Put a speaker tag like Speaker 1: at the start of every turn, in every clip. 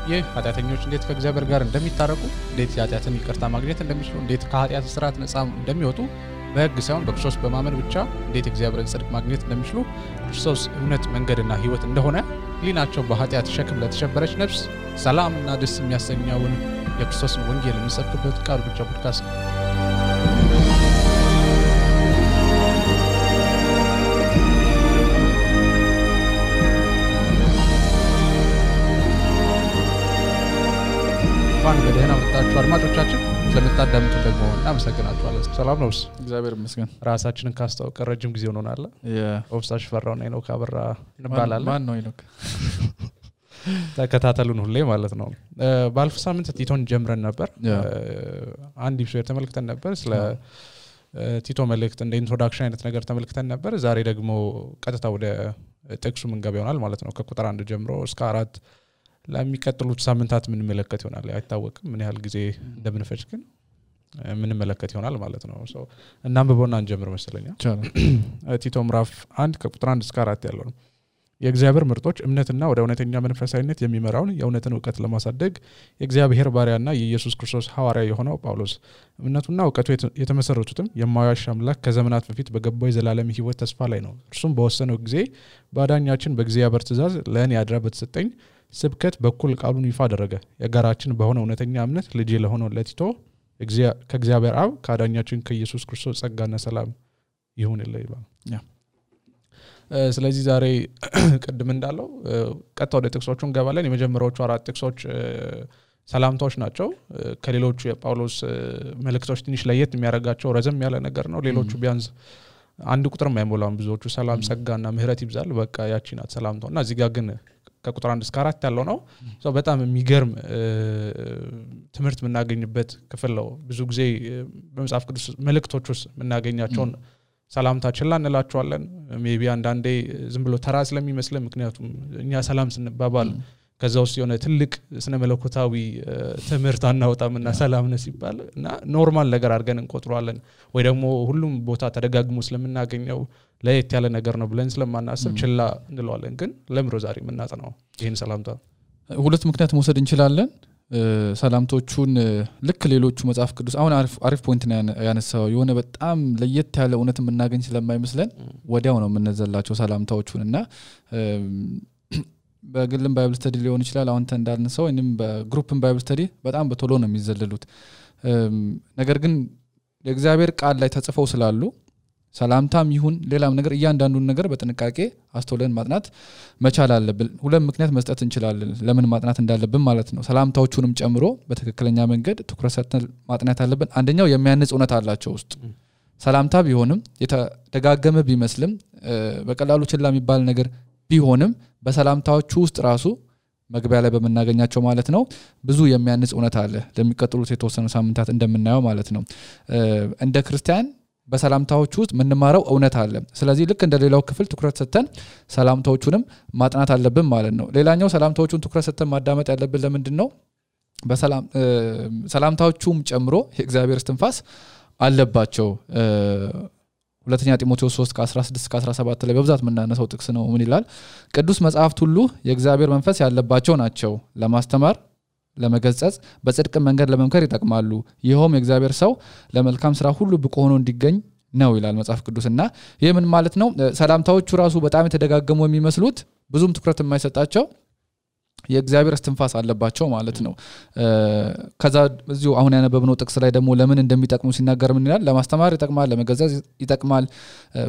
Speaker 1: ይህ ኃጢአተኞች እንዴት ከእግዚአብሔር ጋር እንደሚታረቁ እንዴት ኃጢአትን ይቅርታ ማግኘት እንደሚችሉ እንዴት ከኃጢአት ስርዓት ነፃ እንደሚወጡ በሕግ ሳይሆን በክርስቶስ በማመን ብቻ እንዴት እግዚአብሔርን ጽድቅ ማግኘት እንደሚችሉ ክርስቶስ እውነት መንገድና ሕይወት እንደሆነ ሊናቸው በኃጢአት ሸክም ለተሸበረች ነፍስ ሰላምና ደስ የሚያሰኘውን የክርስቶስን ወንጌል የሚሰብክበት ቃል ብቻ ፖድካስት ነው። በደህና መጣችሁ አድማጮቻችን ስለምታዳምጡ ደግሞ እናመሰግናችኋለን። ሰላም ነው?
Speaker 2: እግዚአብሔር ይመስገን።
Speaker 1: ራሳችንን ካስተዋወቀን ረጅም ጊዜ ሆኖናል። ኦፍሳሽ ፈራውና ሄኖክ አበራ እንባላለን።
Speaker 2: ማን ነው ሄኖክ?
Speaker 1: ተከታተሉን ሁሌ ማለት ነው። ባለፈው ሳምንት ቲቶን ጀምረን ነበር። አንድ ኢፒሶድ ተመልክተን ነበር። ስለ ቲቶ መልእክት እንደ ኢንትሮዳክሽን አይነት ነገር ተመልክተን ነበር። ዛሬ ደግሞ ቀጥታ ወደ ጥቅሱ ምንገባ ይሆናል ማለት ነው። ከቁጥር 1 ጀምሮ እስከ 4 ለሚቀጥሉት ሳምንታት ምን መለከት ይሆናል አይታወቅም። ምን ያህል ጊዜ እንደምንፈጅ ግን ምን መለከት ይሆናል ማለት ነው። እናንብበውና እንጀምር መሰለኝ። ቲቶ ምዕራፍ 1 ከቁጥር 1 እስከ 4 ያለው ነው። የእግዚአብሔር ምርጦች እምነትና ወደ እውነተኛ መንፈሳዊነት የሚመራውን የእውነትን ዕውቀት ለማሳደግ የእግዚአብሔር ባሪያና የኢየሱስ ክርስቶስ ሐዋርያ የሆነው ጳውሎስ እምነቱና ዕውቀቱ የተመሰረቱትም የማያዋሽ አምላክ ከዘመናት በፊት በገባው የዘላለም ሕይወት ተስፋ ላይ ነው። እርሱም በወሰነው ጊዜ ባዳኛችን በእግዚአብሔር ትእዛዝ ለእኔ አድራ በተሰጠኝ ስብከት በኩል ቃሉን ይፋ አደረገ። የጋራችን በሆነ እውነተኛ እምነት ልጅ ለሆነው ለቲቶ ከእግዚአብሔር አብ ከአዳኛችን ከኢየሱስ ክርስቶስ ጸጋና ሰላም ይሁንልህ ይባል። ስለዚህ ዛሬ ቅድም እንዳለው ቀጥታ ወደ ጥቅሶቹ እንገባለን። የመጀመሪያዎቹ 4 ጥቅሶች ሰላምታዎች ናቸው። ከሌሎቹ የጳውሎስ መልእክቶች ትንሽ ለየት የሚያደርጋቸው ረዘም ያለ ነገር ነው። ሌሎቹ ቢያንስ አንድ ቁጥር የማይሞላም። ብዙዎቹ ሰላም ጸጋና ምህረት ይብዛል በቃ ያቺ ናት ሰላምታውና እዚህ ጋር ግን ከቁጥር 1 እስከ 4 ያለው ነው። በጣም የሚገርም ትምህርት የምናገኝበት ክፍል ነው። ብዙ ጊዜ በመጽሐፍ ቅዱስ መልእክቶች ውስጥ የምናገኛቸውን ሰላምታ ችላ እንላቸዋለን። ሜቢ አንዳንዴ ዝም ብሎ ተራ ስለሚመስለን፣ ምክንያቱም እኛ ሰላም ስንባባል ከዛ ውስጥ የሆነ ትልቅ ስነ መለኮታዊ ትምህርት አናወጣምና ሰላም ነው ሲባል እና ኖርማል ነገር አድርገን እንቆጥረዋለን ወይ ደግሞ ሁሉም ቦታ ተደጋግሞ ስለምናገኘው ለየት ያለ ነገር ነው ብለን ስለማናስብ ችላ እንለዋለን። ግን ለምሮ ዛሬ የምናጠናው ይሄን ሰላምታ
Speaker 2: ሁለት ምክንያት መውሰድ እንችላለን። ሰላምቶቹን ልክ ሌሎቹ መጽሐፍ ቅዱስ አሁን አሪፍ ፖይንት ነው ያነሳው። የሆነ በጣም ለየት ያለ እውነት የምናገኝ ስለማይመስለን ወዲያው ነው የምንዘላቸው ሰላምታዎቹን እና በግልም ባይብል ስተዲ ሊሆን ይችላል። አሁን እንዳልነሳው ወይንም በግሩፕም ባይብል ስተዲ በጣም በቶሎ ነው የሚዘለሉት። ነገር ግን የእግዚአብሔር ቃል ላይ ተጽፈው ስላሉ ሰላምታም ይሁን ሌላም ነገር እያንዳንዱን ነገር በጥንቃቄ አስተውለን ማጥናት መቻል አለብን። ሁለት ምክንያት መስጠት እንችላለን ለምን ማጥናት እንዳለብን ማለት ነው። ሰላምታዎቹንም ጨምሮ በትክክለኛ መንገድ ትኩረት ሰጥተን ማጥናት አለብን። አንደኛው የሚያንጽ እውነት አላቸው ውስጥ ሰላምታ ቢሆንም የተደጋገመ ቢመስልም በቀላሉ ችላ የሚባል ነገር ቢሆንም በሰላምታዎቹ ውስጥ ራሱ መግቢያ ላይ በመናገኛቸው ማለት ነው ብዙ የሚያንጽ እውነት አለ። ለሚቀጥሉት የተወሰኑ ሳምንታት እንደምናየው ማለት ነው እንደ ክርስቲያን በሰላምታዎቹ ውስጥ ምንማረው እውነት አለ። ስለዚህ ልክ እንደሌላው ክፍል ትኩረት ሰጥተን ሰላምታዎቹንም ማጥናት አለብን ማለት ነው። ሌላኛው ሰላምታዎቹን ትኩረት ሰጥተን ማዳመጥ ያለብን ለምንድነው? ሰላምታዎቹም ጨምሮ የእግዚአብሔር እስትንፋስ አለባቸው። ሁለተኛ ጢሞቴዎስ 3:16-17 ላይ በብዛት የምናነሳው ጥቅስ ነው። ምን ይላል? ቅዱስ መጽሐፍት ሁሉ የእግዚአብሔር መንፈስ ያለባቸው ናቸው፣ ለማስተማር፣ ለመገሰጽ፣ በጽድቅ መንገድ ለመምከር ይጠቅማሉ። ይሄውም የእግዚአብሔር ሰው ለመልካም ስራ ሁሉ ብቁ ሆኖ እንዲገኝ ነው ይላል መጽሐፍ ቅዱስና ይሄ ምን ማለት ነው? ሰላምታዎቹ ራሱ በጣም የተደጋገሙ የሚመስሉት ብዙም ትኩረት የማይሰጣቸው የእግዚአብሔር እስትንፋስ አለባቸው ማለት ነው። ከዛ እዚሁ አሁን ያነበብነው ጥቅስ ላይ ደግሞ ለምን እንደሚጠቅሙ ሲናገር ምን ይላል? ለማስተማር ይጠቅማል፣ ለመገሰጽ ይጠቅማል፣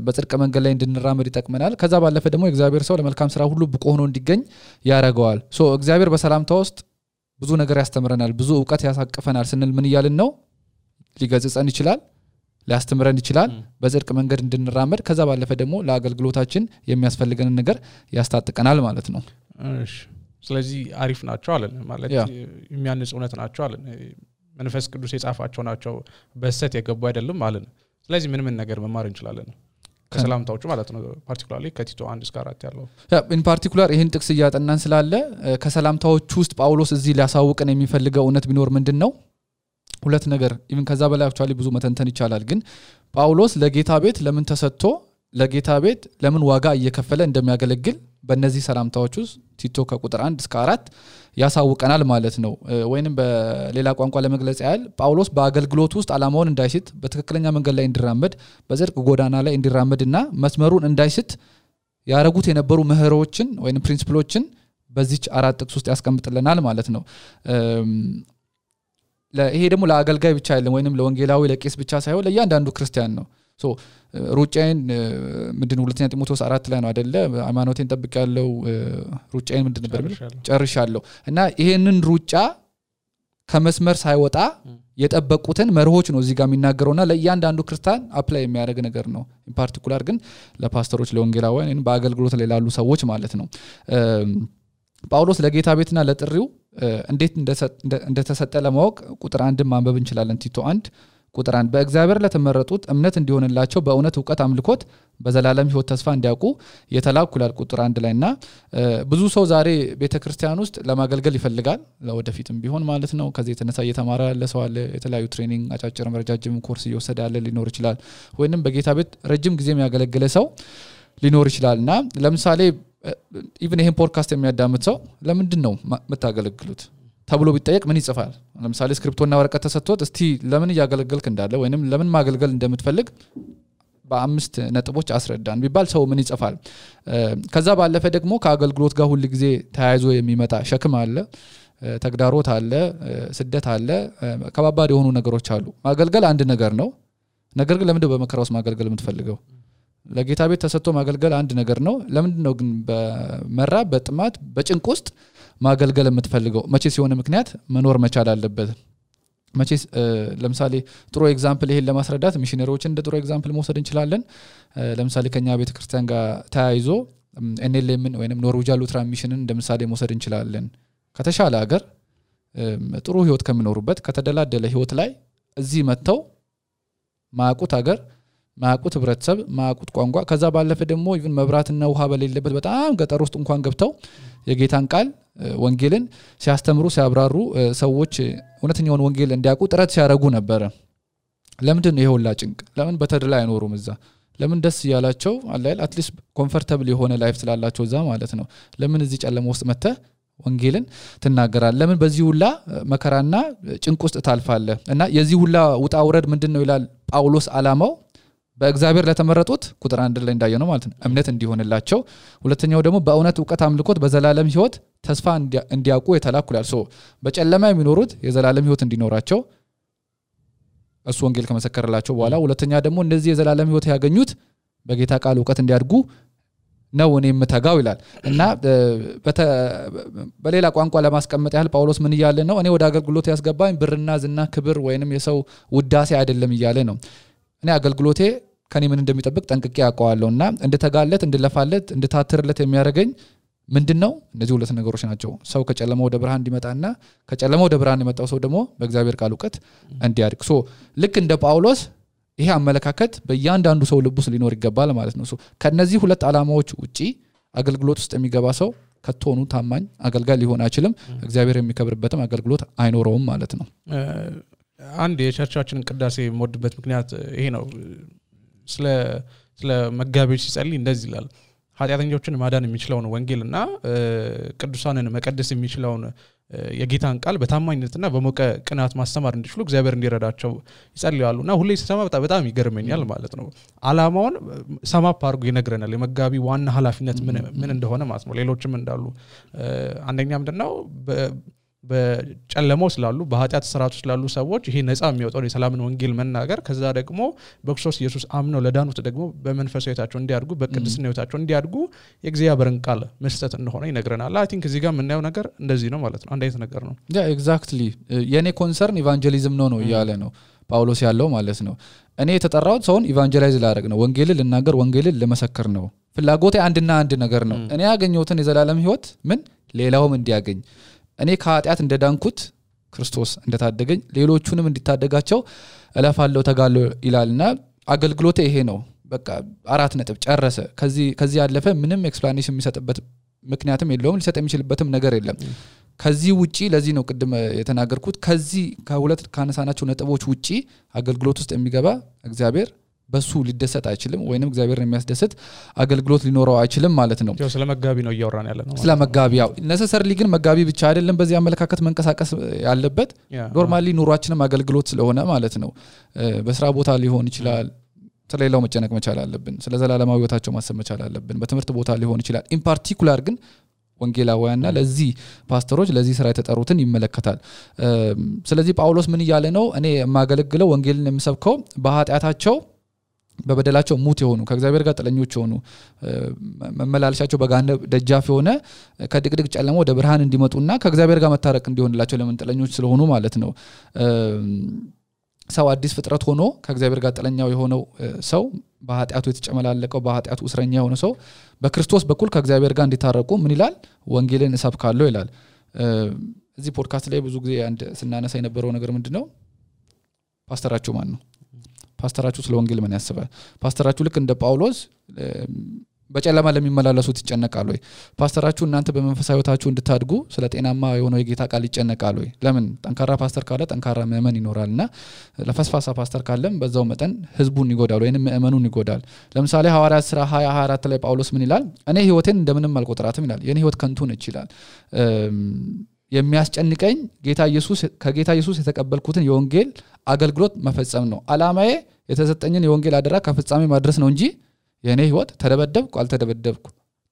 Speaker 2: በጽድቅ መንገድ ላይ እንድንራመድ ይጠቅመናል። ከዛ ባለፈ ደግሞ የእግዚአብሔር ሰው ለመልካም ስራ ሁሉ ብቁ ሆኖ እንዲገኝ ያደርገዋል። እግዚአብሔር በሰላምታ ውስጥ ብዙ ነገር ያስተምረናል፣ ብዙ ዕውቀት ያሳቅፈናል ስንል ምን ይያልን ነው? ሊገስጸን ይችላል፣ ሊያስተምረን ይችላል፣ በጽድቅ መንገድ እንድንራመድ፣ ከዛ ባለፈ ደግሞ ለአገልግሎታችን የሚያስፈልገንን ነገር ያስታጥቀናል ማለት ነው።
Speaker 1: እሺ ስለዚህ አሪፍ ናቸው አለን ማለት የሚያንጽ እውነት ናቸው አለን። መንፈስ ቅዱስ የጻፋቸው ናቸው፣ በሰት የገቡ አይደለም አለን። ስለዚህ ምን ነገር መማር እንችላለን ከሰላምታዎቹ ማለት ነው? ፓርቲኩላርሊ ከቲቶ 1 እስከ 4 ያለው
Speaker 2: ኢን ፓርቲኩላር ይሄን ጥቅስ እያጠናን ስላለ ከሰላምታዎቹ ውስጥ ጳውሎስ እዚህ ሊያሳውቀን የሚፈልገው እውነት ቢኖር ምንድነው? ሁለት ነገር ኢቭን ከዛ በላይ አክቹአሊ ብዙ መተንተን ይቻላል። ግን ጳውሎስ ለጌታ ቤት ለምን ተሰጥቶ ለጌታ ቤት ለምን ዋጋ እየከፈለ እንደሚያገለግል በእነዚህ ሰላምታዎች ውስጥ ቲቶ ከቁጥር 1 እስከ 4 ያሳውቀናል ማለት ነው። ወይንም በሌላ ቋንቋ ለመግለጽ ያህል ጳውሎስ በአገልግሎት ውስጥ ዓላማውን እንዳይስት በትክክለኛ መንገድ ላይ እንዲራመድ በጽድቅ ጎዳና ላይ እንዲራመድና መስመሩን እንዳይስት ያረጉት የነበሩ ምህሮችን ወይንም ፕሪንሲፕሎችን በዚች 4 ጥቅስ ውስጥ ያስቀምጥልናል ማለት ነው። ይሄ ደግሞ ለአገልጋይ ብቻ አይደለም ወይንም ለወንጌላዊ ለቄስ ብቻ ሳይሆን ለእያንዳንዱ ክርስቲያን ነው። ሶ ሩጫዬን ምንድነው ሁለተኛ ጢሞቴዎስ 4 ላይ ነው አይደለ ሃይማኖቴን ጠብቄያለሁ ሩጫዬን ምንድን ነበር ጨርሻለሁ እና ይሄንን ሩጫ ከመስመር ሳይወጣ የጠበቁትን መርሆች ነው እዚህ ጋር የሚናገረውና ለእያንዳንዱ ክርስቲያን አፕላይ የሚያደርግ ነገር ነው። ኢን ፓርቲኩላር ግን ለፓስተሮች ለወንጌላውያን በአገልግሎት ላይ ላሉ ሰዎች ማለት ነው። ጳውሎስ ለጌታ ቤትና ለጥሪው እንዴት እንደተሰጠ ለማወቅ ቁጥር 1 ማንበብ እንችላለን። ቲቶ 1 ቁጥር 1 በእግዚአብሔር ለተመረጡት እምነት እንዲሆንላቸው በእውነት ዕውቀት አምልኮት በዘላለም ሕይወት ተስፋ እንዲያውቁ የተላኩ ይላል ቁጥር 1 ላይና ብዙ ሰው ዛሬ ቤተክርስቲያን ውስጥ ለማገልገል ይፈልጋል ለወደፊትም ቢሆን ማለት ነው። ከዚህ የተነሳ እየተማረ ያለ ሰው አለ። የተለያዩ ትሬኒንግ አጫጭር ረጃጅም ኮርስ እየወሰደ ያለ ሊኖር ይችላል። ወይንም በጌታ ቤት ረጅም ጊዜ የሚያገለግል ሰው ሊኖር ይችላልና ለምሳሌ ኢቭን ይሄን ፖድካስት የሚያዳምጥ ሰው ለምንድነው መታገለግሉት ተብሎ ቢጠየቅ ምን ይጽፋል? ለምሳሌ ስክሪፕቶና ወረቀት ተሰጥቶት እስቲ ለምን ያገለግልክ እንዳለ ወይንም ለምን ማገልገል እንደምትፈልግ በ5 ነጥቦች አስረዳን ቢባል ሰው ምን ይጽፋል? ከዛ ባለፈ ደግሞ ከአገልግሎት ጋር ሁሉ ጊዜ ተያይዞ የሚመጣ ሸክም አለ፣ ተግዳሮት አለ፣ ስደት አለ፣ ከባባድ የሆኑ ነገሮች አሉ። ማገልገል አንድ ነገር ነው። ነገር ግን ለምን በመከራ ውስጥ ማገልገል የምትፈልገው? ለጌታ ቤት ተሰጥቶ ማገልገል አንድ ነገር ነው። ለምንድን ነው ግን በመራብ በጥማት በጭንቅ ውስጥ ማገልገል የምትፈልገው? መቼስ የሆነ ምክንያት መኖር መቻል አለበት። መቼስ ለምሳሌ ጥሩ ኤግዛምፕል ይሄን ለማስረዳት ሚሽነሪዎችን እንደ ጥሩ ኤግዛምፕል መውሰድ እንችላለን። ለምሳሌ ከኛ ቤተክርስቲያን ጋር ተያይዞ ኤንኤልኤምን ወይንም ኖርዌጂያን ሉትራን ሚሽንን እንደምሳሌ መውሰድ እንችላለን። ከተሻለ ሀገር ጥሩ ህይወት ከሚኖሩበት ከተደላደለ ህይወት ላይ እዚህ መተው ማያውቁት ሀገር ማያውቁት ህብረተሰብ ማያውቁት ቋንቋ ከዛ ባለፈ ደግሞ ኢቭን መብራትና ውሃ በሌለበት በጣም ገጠር ውስጥ እንኳን ገብተው የጌታን ቃል ወንጌልን ሲያስተምሩ ሲያብራሩ ሰዎች እውነተኛውን ወንጌል እንዲያውቁ ጥረት ሲያደርጉ ነበር። ለምንድን ነው ይሄውላ ጭንቅ? ለምን በተድላ አይኖሩም እዛ? ለምን ደስ ያላቸው አላል አትሊስት ኮምፎርታብል የሆነ ላይፍ ስላላቸው እዛ ማለት ነው። ለምን እዚህ ጨለማ ውስጥ መተህ ወንጌልን ትናገራለህ? ለምን በዚህ ሁላ መከራና ጭንቅ ውስጥ ታልፋለህ? እና የዚህ ሁላ ውጣ ውረድ ምንድነው ይላል ጳውሎስ ዓላማው በእግዚአብሔር ለተመረጡት ቁጥር 1 ላይ እንዳየነው ማለት ነው እምነት እንዲሆንላቸው፣ ሁለተኛው ደግሞ በእውነት ዕውቀት አምልኮት በዘላለም ሕይወት ተስፋ እንዲያውቁ የተላኩላል። በጨለማ የሚኖሩት የዘላለም ሕይወት እንዲኖራቸው እሱ ወንጌል ከመሰከረላቸው በኋላ፣ ሁለተኛ ደግሞ እነዚህ የዘላለም ሕይወት ያገኙት በጌታ ቃል ዕውቀት እንዲያድጉ ነው እኔ የምተጋው ይላል። እና በሌላ ቋንቋ ለማስቀመጥ ያህል ጳውሎስ ምን እያለ ነው? እኔ ወደ አገልግሎት ያስገባኝ ብርና ዝና ክብር ወይንም የሰው ውዳሴ አይደለም እያለ ነው። እኔ አገልግሎቴ ከኔ ምን እንደሚጠብቅ ጠንቅቄ ያውቀዋለሁና እንድተጋለት እንድለፋለት እንድታትርለት የሚያደርገኝ ምንድነው? እነዚህ ሁለት ነገሮች ናቸው። ሰው ከጨለማ ወደ ብርሃን እንዲመጣና ከጨለማ ወደ ብርሃን የመጣው ሰው ደግሞ በእግዚአብሔር ቃል ዕውቀት እንዲያድግ። ልክ እንደ ጳውሎስ ይሄ አመለካከት በእያንዳንዱ ሰው ልብ ውስጥ ሊኖር ይገባል ማለት ነው። ከነዚህ ሁለት ዓላማዎች ውጪ አገልግሎት ውስጥ የሚገባ ሰው ከቶኑ ታማኝ አገልጋይ ሊሆን አይችልም። እግዚአብሔር የሚከብርበትም አገልግሎት አይኖረውም ማለት ነው።
Speaker 1: አንድ የቸርቻችንን ቅዳሴ የምወድበት ምክንያት ይሄ ነው። ስለ መጋቢዎች ሲጸልይ እንደዚህ ይላል። ኃጢአተኞችን ማዳን የሚችለውን ወንጌልና ቅዱሳንን መቀደስ የሚችለውን የጌታን ቃል በታማኝነትና በሞቀ ቅናት ማስተማር እንዲችሉ እግዚአብሔር እንዲረዳቸው ይጸልያሉና ሁሌ ሲሰማ በጣም ይገርመኛል ማለት ነው። ዓላማውን ሰማፕ አድርጎ ይነግረናል። የመጋቢ ዋና ኃላፊነት ምን እንደሆነ ማለት ነው። ሌሎችም እንዳሉ አንደኛ ምንድነው በጨለማው ስላሉ በኃጢአት ስርዓት ውስጥ ስላሉ ሰዎች ይሄ ነፃ የሚወጣው የሰላምን ወንጌል መናገር፣ ከዛ ደግሞ በክርስቶስ ኢየሱስ አምነው ለዳኑት ደግሞ በመንፈሳዊ ሕይወታቸው እንዲያድጉ በቅድስና ሕይወታቸው እንዲያድጉ የእግዚአብሔርን ቃል መስጠት እንደሆነ ይነግረናል። አይ ቲንክ እዚህ ጋር የምናየው ነገር እንደዚህ ነው ማለት ነው። አንድ አይነት ነገር ነው።
Speaker 2: ኤግዛክትሊ የኔ ኮንሰርን ኢቫንጀሊዝም ነው እያለ ነው ጳውሎስ ያለው ማለት ነው። እኔ የተጠራሁት ሰውን ኢቫንጀላይዝ ላደርግ ነው፣ ወንጌልን ልናገር፣ ወንጌልን ለመሰከር ነው። ፍላጎቴ አንድና አንድ ነገር ነው። እኔ ያገኘሁትን የዘላለም ሕይወት ሌላውም እንዲያገኝ፣ እኔ ከኃጢአት እንደዳንኩት ክርስቶስ እንደታደገኝ ሌሎቹንም እንዲታደጋቸው እለፋለሁ ተጋለሁ ይላልና አገልግሎቴ ይሄ ነው። በቃ 4 ነጥብ ጨረሰ። ከዚህ ያለፈ ምንም ኤክስፕላኔሽን የሚሰጥበት ምክንያትም የለውም፣ ሊሰጥ የሚችልበትም ነገር የለም። ከዚህ ውጪ ለዚህ ነው ቅድም የተናገርኩት ከዚህ ከሁለት ካነሳናቸው ነጥቦች ውጪ አገልግሎት ውስጥ የሚገባ እግዚአብሔር በሱ ሊደሰት አይችልም ወይንም እግዚአብሔርን የሚያስደስት አገልግሎት ሊኖረው አይችልም ማለት ነው
Speaker 1: ስለ መጋቢ ነው እያወራን ያለ ነው
Speaker 2: ስለ መጋቢ ያው necessarily ግን መጋቢ ብቻ አይደለም በዚህ አመለካከት መንቀሳቀስ ያለበት ኖርማሊ ኑሯችንም አገልግሎት ስለሆነ ማለት ነው በስራ ቦታ ሊሆን ይችላል ስለሌላው መጨነቅ መቻል አለብን ስለ ዘላለማዊ ህይወታቸው ማሰብ መቻል አለብን በትምህርት ቦታ ሊሆን ይችላል in particular ግን ወንጌላውያንና ለዚህ ፓስተሮች ለዚህ ስራ የተጠሩትን ይመለከታል ስለዚህ ጳውሎስ ምን ይያለ ነው እኔ የማገለግለው ወንጌልን የምሰብከው በኃጢያታቸው በበደላቸው ሙት የሆኑ ከእግዚአብሔር ጋር ጥለኞች የሆኑ መመላለሻቸው በጋነ ደጃፍ የሆነ ከድቅድቅ ጨለማ ወደ ብርሃን እንዲመጡና ከእግዚአብሔር ጋር መታረቅ እንዲሆንላቸው ለምን ጥለኞች ስለሆኑ ማለት ነው ሰው አዲስ ፍጥረት ሆኖ ከእግዚአብሔር ጋር ጥለኛው የሆነው ሰው በኃጢያቱ የተጨመላለቀው በኃጢያቱ እስረኛ የሆነ ሰው በክርስቶስ በኩል ከእግዚአብሔር ጋር እንዲታረቁ ምን ይላል ወንጌልን እሰብካለሁ ይላል እዚህ ፖድካስት ላይ ብዙ ጊዜ አንድ ስናነሳ የነበረው ነገር ምንድነው ፓስተራችሁ ማን ነው ፓስተራችሁ ስለ ወንጌል ምን ያስባል ፓስተራችሁ ልክ እንደ ጳውሎስ በጨለማ ለሚመላለሱት ይጨነቃል ወይ ፓስተራችሁ እናንተ በመንፈሳዊ ህይወታችሁ እንድታድጉ ስለ ጤናማ የሆነው የጌታ ቃል ይጨነቃል ወይ ለምን ጠንካራ ፓስተር ካለ ጠንካራ ምእመን ይኖራልና ለፈስፋሳ ፓስተር ካለም በዛው መጠን ህዝቡን ይጎዳል ወይንም ምእመኑን ይጎዳል ለምሳሌ ሐዋርያት ሥራ 20:24 ላይ ጳውሎስ ምን ይላል እኔ ህይወቴን እንደምንም አልቆጥራትም ይላል የኔ ህይወት ከንቱ ነች ይላል የሚያስጨንቀኝ ከጌታ ኢየሱስ የተቀበልኩትን የወንጌል አገልግሎት መፈጸም ነው አላማዬ የተሰጠኝን የወንጌል አደራ ከፍጻሜ ማድረስ ነው እንጂ የኔ ህይወት ተደበደብኩ አልተደበደብኩ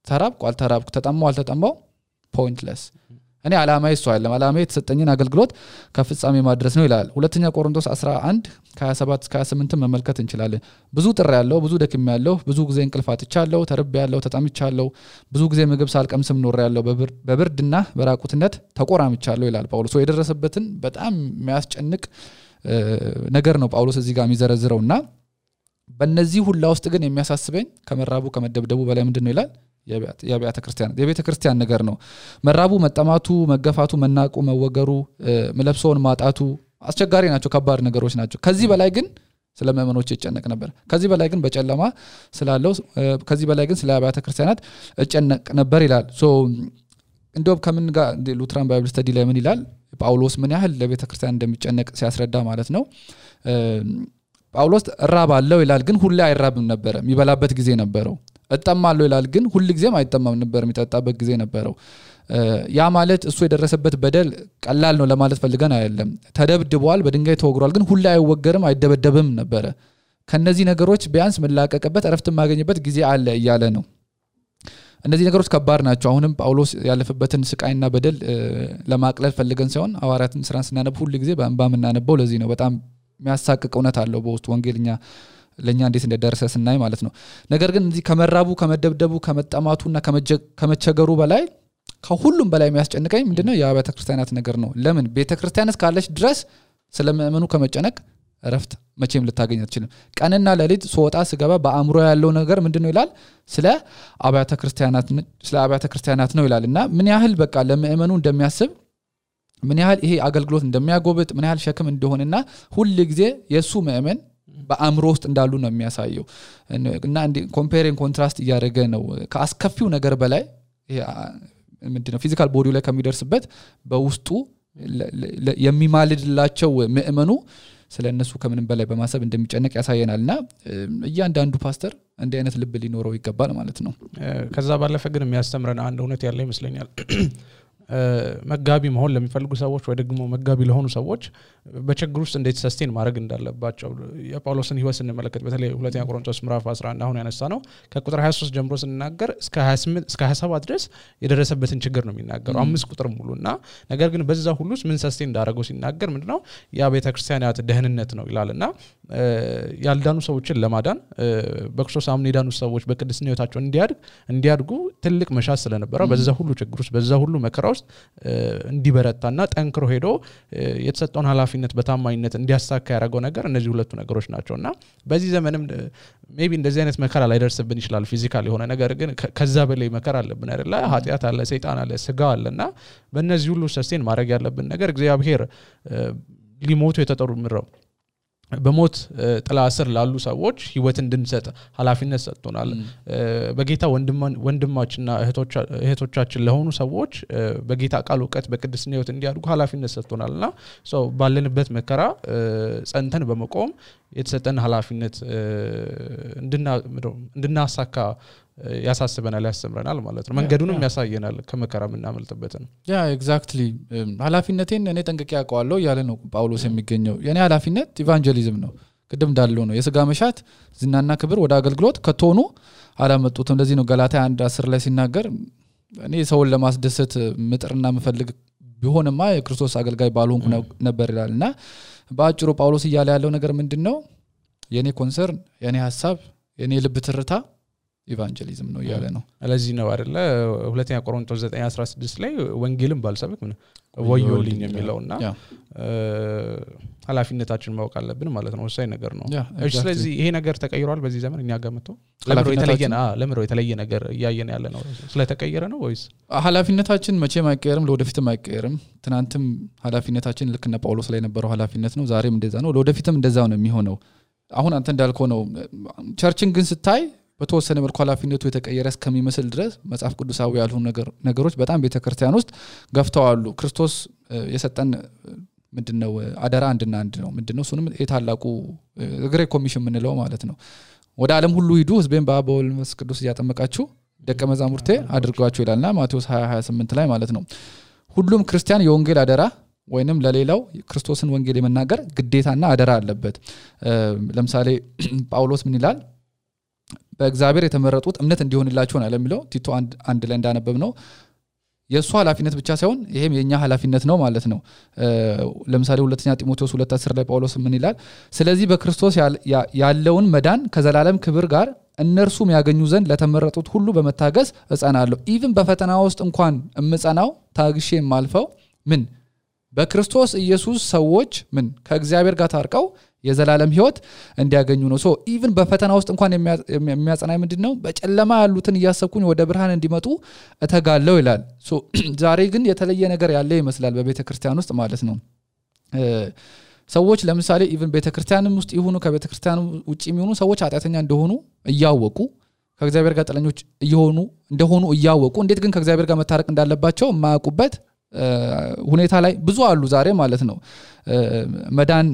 Speaker 2: ተራብኩ አልተራብኩ ተጠማው አልተጠማው ፖይንትለስ እኔ አላማዬ እሱ አይደለም አላማዬ የተሰጠኝን አገልግሎት ከፍጻሜ ማድረስ ነው ይላል ሁለተኛ ቆሮንቶስ 11:27-28 መመልከት እንችላለን ብዙ ጥሪ ያለው ብዙ ደክም ያለው ብዙ ጊዜ እንቅልፍ አጥቻለሁ ተርቤ ያለው ተጠምቻለሁ ብዙ ጊዜ ምግብ ሳልቀምስም ኖር ያለው በብርድና በራቁትነት ተቆራምቻለሁ ይላል ጳውሎስ የደረሰበትን በጣም የሚያስጨንቅ ነገር ነው ጳውሎስ እዚህ ጋር የሚዘረዝረውና በእነዚህ ሁላ ውስጥ ግን የሚያሳስበኝ ከመራቡ ከመደብደቡ በላይ ምንድነው ይላል የቤተ ክርስቲያን ነገር ነው መራቡ መጠማቱ መገፋቱ መናቁ መወገሩ መለብሶን ማጣቱ አስቸጋሪ ናቸው ከባድ ነገሮች ናቸው ከዚህ በላይ ግን ስለ ምእመኖች ይጨነቅ ነበር ከዚህ በላይ ግን በጨለማ ስላለው ከዚህ በላይ ግን ስለ ቤተ ክርስቲያናት ይጨነቅ ነበር ይላል ሶ እንደውም ከምን ጋር ሉትራን ባይብል ስተዲ ላይ ምን ይላል ጳውሎስ ምን ያህል ለቤተ ክርስቲያን እንደሚጨነቅ ሲያስረዳ ማለት ነው ጳውሎስ ራባለው ይላል ግን ሁሌ አይራብም ነበር የሚበላበት ጊዜ ነበረው እጠማለው ይላል ግን ሁሉ ጊዜም አይጠማም ነበር የሚጠጣበት ጊዜ ነበረው ያ ማለት እሱ የደረሰበት በደል ቀላል ነው ለማለት ፈልገን አይደለም ተደብድቧል በድንጋይ ተወግሯል ግን ሁሉ አይወገርም አይደበደብም ነበር ከነዚህ ነገሮች ቢያንስ መላቀቅበት አረፍት ማገኝበት ጊዜ አለ እያለ ነው እነዚህ ነገሮች ከባድ ናቸው አሁንም ጳውሎስ ያለፈበትን ስቃይና በደል ለማቅለል ፈልገን ሳይሆን ሐዋርያትን ስራን ስናነብ ሁሉ ጊዜ በእንባ እናነበው ለዚህ ነው በጣም የሚያሳቅቅ እውነት አለው በውስጥ ወንጌልኛ ለኛ እንዴት እንደደረሰ ስናይ ማለት ነው ነገር ግን እዚህ ከመራቡ ከመደብደቡ ከመጠማቱና ከመቸገሩ በላይ ከሁሉም በላይ የሚያስጨንቀኝ ምንድነው የቤተ ክርስቲያናት ነገር ነው ለምን ቤተ ክርስቲያን እስካለች ድረስ ስለምእመኑ ከመጨነቅ ረፍት መቼም ልታገኝ አትችልም ቀንና ለሊት ሶጣ ስገባ በአእምሮ ያለው ነገር ምንድነው ይላል ስለ አብያተ ክርስቲያናት ነው ይላልና ምን ያህል በቃ ለምእመኑ እንደሚያስብ ምን ያህል ይሄ አገልግሎት እንደሚያጎብጥ ምን ያህል ሸክም እንደሆነና ሁሉ ጊዜ የሱ ምእመን በአእምሮ ውስጥ እንዳሉ ነው የሚያሳየው እና ኮምፔሪንግ ኮንትራስት እያደረገ ነው ከአስከፊው ነገር በላይ ይሄ ምንድነው ፊዚካል ቦዲው ላይ ከሚደርስበት በውስጡ የሚማልድላቸው ምእመኑ ስለነሱ ከምንም በላይ በማሰብ እንደሚጨነቅ ያሳየናልና እያንዳንዱ ፓስተር እንደ አይነት ልብ ሊኖረው ይገባል ማለት ነው
Speaker 1: ከዛ ባለፈ ግን የሚያስተምረን አንድ እውነት ያለ ይመስለኛል መጋቢ መሆን ለሚፈልጉ ሰዎች ወይ ደግሞ መጋቢ ለሆኑ ሰዎች በችግር ውስጥ እንዴት ሰስቴን ማድረግ እንዳለባቸው የጳውሎስን ህይወት ስንመለከት በተለይ ሁለተኛ ቆሮንቶስ ምዕራፍ 11 አሁን ያነሳ ነው ከቁጥር 23 ጀምሮ ስንናገር እስከ 28 እስከ 27 ድረስ የደረሰበትን ችግር ነው የሚናገረው 5 ቁጥር ሙሉና ነገር ግን በዛ ሁሉ ምን ሰስቴን እንዳደረገው ሲናገር ምንድነው ያ ቤተ ክርስቲያናት ደህንነት ነው ይላልና ያልዳኑ ሰዎችን ለማዳን በክርስቶስ አምነው የዳኑ ሰዎች በቅድስና ህይወታቸው እንዲያድጉ ትልቅ መሻት ስለነበረ በዛ ሁሉ ችግር ውስጥ በዛ ሁሉ መከራ ውስጥ እንዲበረታና ጠንክሮ ሄዶ የተሰጠውን ኃላፊነት በታማኝነት እንዲያሳካ ያደረገው ነገር እነዚህ ሁለቱ ነገሮች ናቸውና በዚህ ዘመንም ሜቢ እንደዚህ አይነት መከራ ላይ ደርስብን ይችላል ፊዚካል የሆነ ነገር ግን ከዛ በላይ መከራ አለብን አይደል ኃጢያት አለ ሰይጣን አለ ስጋ አለና በእነዚህ ሁሉ ሰስቴን ማድረግ ያለብን ነገር እግዚአብሔር ሊሞቱ የተጠሩ ምድረው በሞት ጥላ ስር ላሉ ሰዎች ህይወት እንድንሰጥ ኃላፊነት ሰጥቶናል በጌታ ወንድማችንና እህቶቻችን ለሆኑ ሰዎች በጌታ ቃል ዕውቀት በቅድስና ህይወት እንዲያድጉ ኃላፊነት ሰጥቶናልና ባለንበት መከራ ጸንተን በመቆም የተሰጠን ኃላፊነት እንድናሳካ ያሳስበናል ያስተምረናል ማለት ነው መንገዱንም ያሳየናል ከመከራ ምናመልጥበት ነው
Speaker 2: ያ ኤግዛክትሊ ኃላፊነቴን እኔ ጠንቅቄ ያውቀዋለሁ ያለ ነው ጳውሎስ የሚገኘው የኔ ኃላፊነት ኢቫንጀሊዝም ነው ቅድም እንዳለው ነው የሥጋ መሻት ዝናና ክብር ወደ አገልግሎት ከተሆኑ አላመጡትም እንደዚህ ነው ገላትያ 1:10 ላይ ሲናገር እኔ ሰውን ለማስደሰት ምጥርና መፈልግ ቢሆንማ የክርስቶስ አገልጋይ ባልሆንኩ ነበር ይላልና በአጭሩ ጳውሎስ እያለ ያለው ነገር ምንድነው የኔ ኮንሰርን የኔ ሐሳብ የኔ ልብ ትርታ ኢቫንጀሊዝም ነው ያለ ነው
Speaker 1: ስለዚህ ነው አይደለ ሁለተኛ ቆሮንቶስ 9:16 ላይ ወንጌልን ባልሰብክ ምን ወዮልኝ የሚለውና ኃላፊነታችን ማወቅ አለብን ማለት ነው ወሳኝ ነገር ነው እሺ ስለዚህ ይሄ ነገር ተቀይሯል በዚህ ዘመን እኛ ጋር መጥቶ ለምሮ የተለየ ነገር ያያየን ያለ ነው ስለተቀየረ ነው ወይስ
Speaker 2: ኃላፊነታችን መቼም አይቀየርም ለወደፊትም አይቀየርም ትናንትም ኃላፊነታችን ልክ እንደ ጳውሎስ ላይ ነበረው ኃላፊነት ነው ዛሬም እንደዛ ነው ለወደፊትም እንደዛው ነው የሚሆነው አሁን አንተ እንዳልከው ነው ቸርችን ግን ስታይ በተወሰነ መልኩ ኃላፊነቱ የተቀየረ እስከሚመስል ድረስ መጽሐፍ ቅዱሳዊ ያልሆኑ ነገሮች በጣም ቤተክርስቲያን ውስጥ ገፍተዋሉ ክርስቶስ የሰጠን ምንድነው አደራ አንድና አንድ ነው ምንድነው እሱንም የታላቁ ግሬት ኮሚሽን ምንለው ማለት ነው ወደ ዓለም ሁሉ ሂዱ ህዝቤን በአብ ወልድ መንፈስ ቅዱስ ያጠመቃችሁ ደቀ መዛሙርቴ አድርጓቸው ይላልና ማቴዎስ 20:28 ላይ ማለት ነው ሁሉም ክርስቲያን የወንጌል አደራ ወይንም ለሌላው ክርስቶስን ወንጌል የመናገር ግዴታና አደራ አለበት ለምሳሌ ጳውሎስ ምን ይላል በእግዚአብሔር የተመረጡት እምነት እንዲሆንላችሁ ነው ለሚለው ቲቶ አንድ ላይ እንዳነበብ ነው የሱ ኃላፊነት ብቻ ሳይሆን ይሄም የኛ ኃላፊነት ነው ማለት ነው ለምሳሌ ሁለተኛ ጢሞቴዎስ 2:10 ላይ ጳውሎስ ምን ይላል ስለዚህ በክርስቶስ ያለውን መዳን ከዘላለም ክብር ጋር እነርሱም ያገኙ ዘንድ ለተመረጡት ሁሉ በመታገስ እጸናለሁ ኢቭን በፈተና ውስጥ እንኳን እምጸናው ታግሼ ማልፈው ምን በክርስቶስ ኢየሱስ ሰዎች ምን ከእግዚአብሔር ጋር ታርቀው የዘላለም ሕይወት እንዲያገኙ ነው ሶ ኢቭን በፈተና ውስጥ እንኳን የሚያጸናይ ምንድነው በጨለማ ያሉትን ያሰብኩኝ ወደ ብርሃን እንዲመጡ እተጋለው ይላል ሶ ዛሬ ግን የተለየ ነገር ያለ ይመስላል በቤተክርስቲያን ውስጥ ማለት ነው ሰዎች ለምሳሌ ኢቭን ቤተክርስቲያንም ውስጥ ይሁኑ ከቤተክርስቲያኑ ውጪ የሚሆኑ ሰዎች ኃጢአተኛ እንደሆኑ እያወቁ ከእግዚአብሔር ጋር ጠለኞች እንደሆኑ እያወቁ እንዴት ግን ከእግዚአብሔር ጋር መታረቅ እንዳለባቸው ማያውቁበት ሁኔታ ላይ ብዙ አሉ ዛሬ ማለት ነው መዳን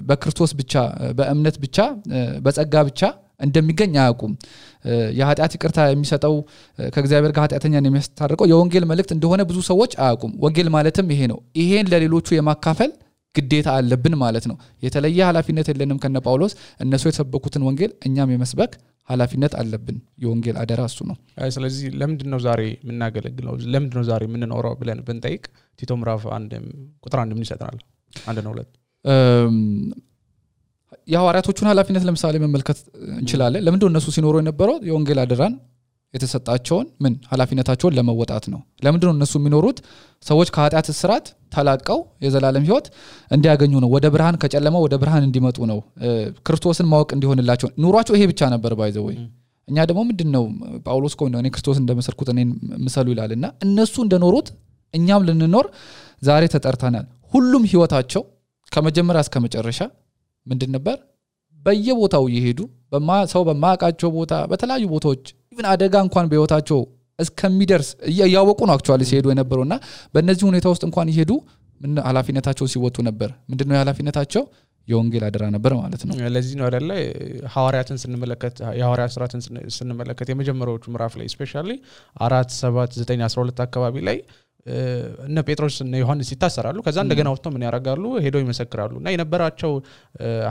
Speaker 2: በክርስቶስ ብቻ በእምነት ብቻ በጸጋ ብቻ እንደሚገኝ አያውቁም የኃጢአት ይቅርታ የሚሰጠው ከእግዚአብሔር ጋር ኃጢአተኛን የሚያስታርቀው የወንጌል መልእክት እንደሆነ ብዙ ሰዎች አያውቁም ወንጌል ማለትም ይሄ ነው ይሄን ለሌሎቹ የማካፈል ግዴታ አለብን ማለት ነው የተለየ ኃላፊነት የለንም ከነ ጳውሎስ እነሱ የተሰበኩትን ወንጌል እኛም የመስበክ ኃላፊነት አለብን የወንጌል አደራ እሱ ነው
Speaker 1: ስለዚህ ለምንድነው ዛሬ ምናገለግለው ለምንድነው ዛሬ ምንኖረው ብለን ብንጠይቅ ቲቶ ምዕራፍ 1 ቁጥር 1 ምን ይሰጣል 1 ነው 2 የሐዋርያቶቹን ኃላፊነት ለምሳሌ መመልከት እንችላለን ለምንድነው እነሱ ሲኖሩ የነበረው የወንጌል አደራን የተሰጣቸውን ምን ኃላፊነታቸውን ለመወጣት ነው ለምንድነው እነሱ የሚኖሩት ሰዎች ከኃጢአት እስራት ተላቀው የዘላለም ሕይወት እንዲያገኙ ነው ወደ ብርሃን ከጨለማው ወደ ብርሃን እንዲመጡ ነው ክርስቶስን ማወቅ እንዲሆንላቸው ኑሯቸው ይሄ ብቻ ነበር ባይዘው እኛ ደግሞ ምንድነው ጳውሎስ ቆይ ነው እኔ ክርስቶስን እንደመሰልኩት እኔን ምሰሉ ይላልና እነሱ እንደኖሩት እኛም ልንኖር ዛሬ ተጠርተናል ሁሉም ሕይወታቸው ከመጀመሪያ እስከ መጨረሻ ምንድን ነበር በየቦታው ይሄዱ ሰው በማያውቃቸው ቦታ በተለያዩ ቦታዎች ኢቭን አደጋ እንኳን በህይወታቸው እስከሚደርስ ያወቁ ነው አክቹአሊ ሲሄዱ የነበረውና በእነዚህ ሁኔታ ውስጥ እንኳን ይሄዱ ምን ኃላፊነታቸው ሲወጡ ነበር ምንድነው የኃላፊነታቸው የወንጌል አደራ ነበር ማለት ነው ለዚህ ነው አይደለ ሐዋርያትን ስንመለከት የሐዋርያት ሥራትን ስንመለከት የመጀመሪያዎቹ ምዕራፍ ላይ ስፔሻሊ 4 7 9 12 አካባቢ ላይ እነ ጴጥሮስ እና ዮሐንስ ይታሰራሉ ከዛ እንደገና ወጥተው ምን ያረጋሉ ሄደው ይመሰክራሉና የነበራቸው